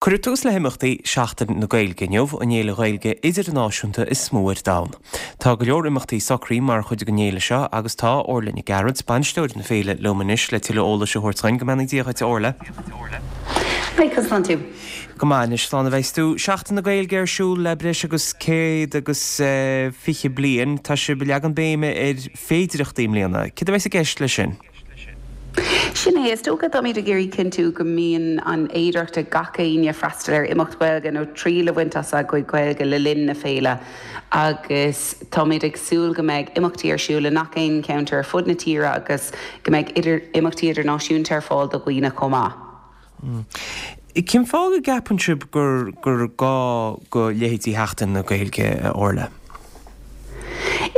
Cuireadh tús le himeachtaí Sheachtain na Gaeilge inniu, an fhéile Ghaeilge idirnáisiúnta is mó ar domhan. Tá go leor imeachtaí socraithe mar chuid den fhéile seo agus tá Orla Nic Gearailt, bainisteoir na féile, liom anois le tuilleadh eolais a thabhairt dhuinn. Go mbeannaí Dia dhuit, a Orla. Hi, conas tánn tú? Go maith anois, slán a bheas tú. Seachtain na Gaeilge ar siúl le breis agus 120 bliain. Tá sibh ag leagan béime ar féidireachtaí i mbliana. Céard a bheas i gceist leis sin? Sin é, is dócha, táimid ag iarraidh cinntiú go mbíonn an fhéidearthacht ag gach éinne freastal ar imeacht Ghaeilge nó triail a bhaint as a gcuid Gaeilge le linn na féile agus táimid ag súil go mbeidh imeachtaí ar siúl i ngach aon cheantar ar fud na tíre agus go mbeidh imeachtaí idirnáisiúnta ar fáil do dhaoine chomh maith. Cén fáth go gceapann sibh gur gur gá go leithéidí Sheachtain na Gaeilge, a Orla?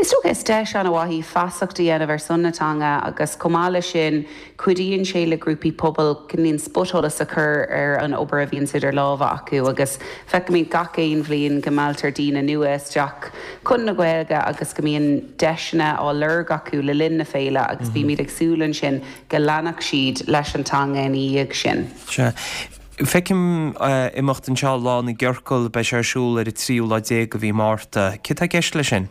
Is dócha is deis an-mhaith í feasacht a dhéanamh ar son na teanga agus chomh maith leis sin cuidíonn sé le grúpaí pobail cineál spotsholas a chur ar an obair a bhíonns idir lámha acu agus feicimid gach aon bhliain go mealltar daoine nua isteach chun na Gaeilge agus go mbíonn deiseanna á lorg acu le linn na féile agus bímid ag súil ansin go leanfadh siad leis an teanga ina dhiaidh sin. Sea. Feicim imeacht anseo, Lá na gCiorcal, beidh sé ar siúl ar an tríú lá déag de mhí Márta. Céard tá i gceist leis sin?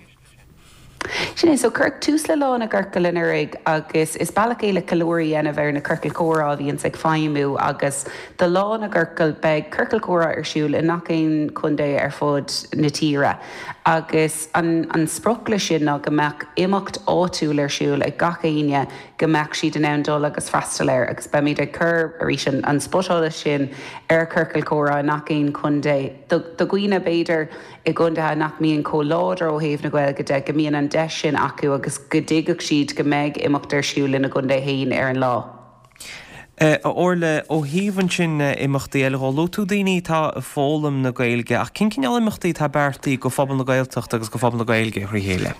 Sin é, so cuireadh tús le Lá na gCiorcal anuraidh agus is bealach é le ceiliúradh a dhéanamh ar na ciorcail chomhrá a bhíonns ag feidhmiú agus do Lá na gCiorcal beidh ciorcal comhrá ar siúl i ngach aon chontae ar fud na tíre agus an an sprioc leis sin ná go mbeadh imeacht áitiúil ar siúl ag gach éinne go mbeadh siad in ann dul agus freastal air agus beimid ag cur, arís, an spotsholas sin ar chiorcail chomhrá i ngach aon chontae. Do dhaoine, b'fhéidir, i gcontaetha nach mbíonn chomh láidir ó thaobh na Gaeilge de, go mbíonn an deis sin acu agus go dtuigfeadh siad go mbeidh imeacht ar siúl ina gcontae féin ar an lá. A Orla, ó thaobh ansin imeachtaí eile dhó, luaigh tú daoine atá ag foghlaim na Gaeilge ach cén cineál imeachtaí atá beartaithe go phobal na Gaeltachta agus go phobal na Gaeilge thrí chéile?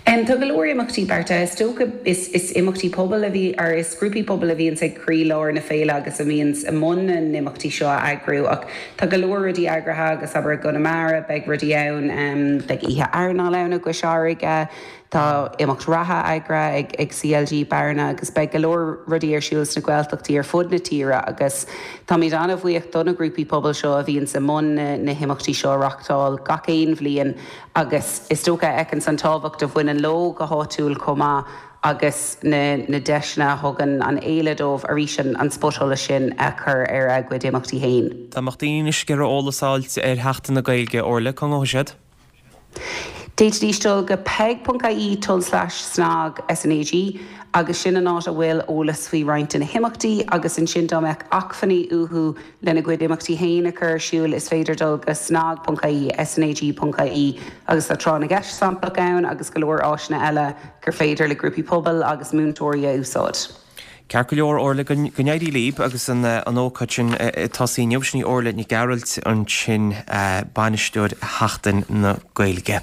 Tá go leor imeachtaí beartaithe. Is dócha is is imeachtaí pobail a bhí or is grúpaí pobail a bhíonns ag croílár na féile agus a bhíonns i mbun na n-imeachtaí seo a eagrú ach tá go leor rudaí eagraithe agus abair i gConamara beidh rudaí ann, beidh oíche airneáil ann i gCois Fharraige, Tá imeacht reatha eagraithe ag CLG Bearna agus beidh go leor rudaí ar siúl sna Gaeltachtaí ar fud na tíre agus táimid an-bhuíoch do na grúpaí pobail seo a bhíonns i mbun na himeachtaí seo a reachtáil gach aon bhliain agus is dócha a fheiceanns an tábhacht a bhaineann leo go háitiúil chomh maith agus na deiseanna a thugann an fhéile dóibh arís an spotsholas sin a chur ar a gcuid imeachtaí féin. Dá mbeadh daoine anois ag iarraidh eolas a fháilt ar Sheachtain na Gaeilge, Orla, cá ngabhfaidh siad? D'fhéadfaidís dul go peig.ie tulslais snag SNAG agus sin an áit a bhfuil eolas faoi roinnt de na himeachtaí agus ansin dá mbeadh acmhainní uathu lena gcuid imeachtaí féin a chur ar siúl is féidir dul go snag.ie, snag.ie agus tá tráth na gceist samplach ann agus go leor áiseanna eile gur féidir le grúpaí pobail agus múinteoirí a úsáid. Ceart go leor, Orla, go n-éirí libh agus an ócáid sin ag tosaí inniu. Sin í Orla Nic Gearailt ansin, bainisteoir Sheachtain na Gaeilge.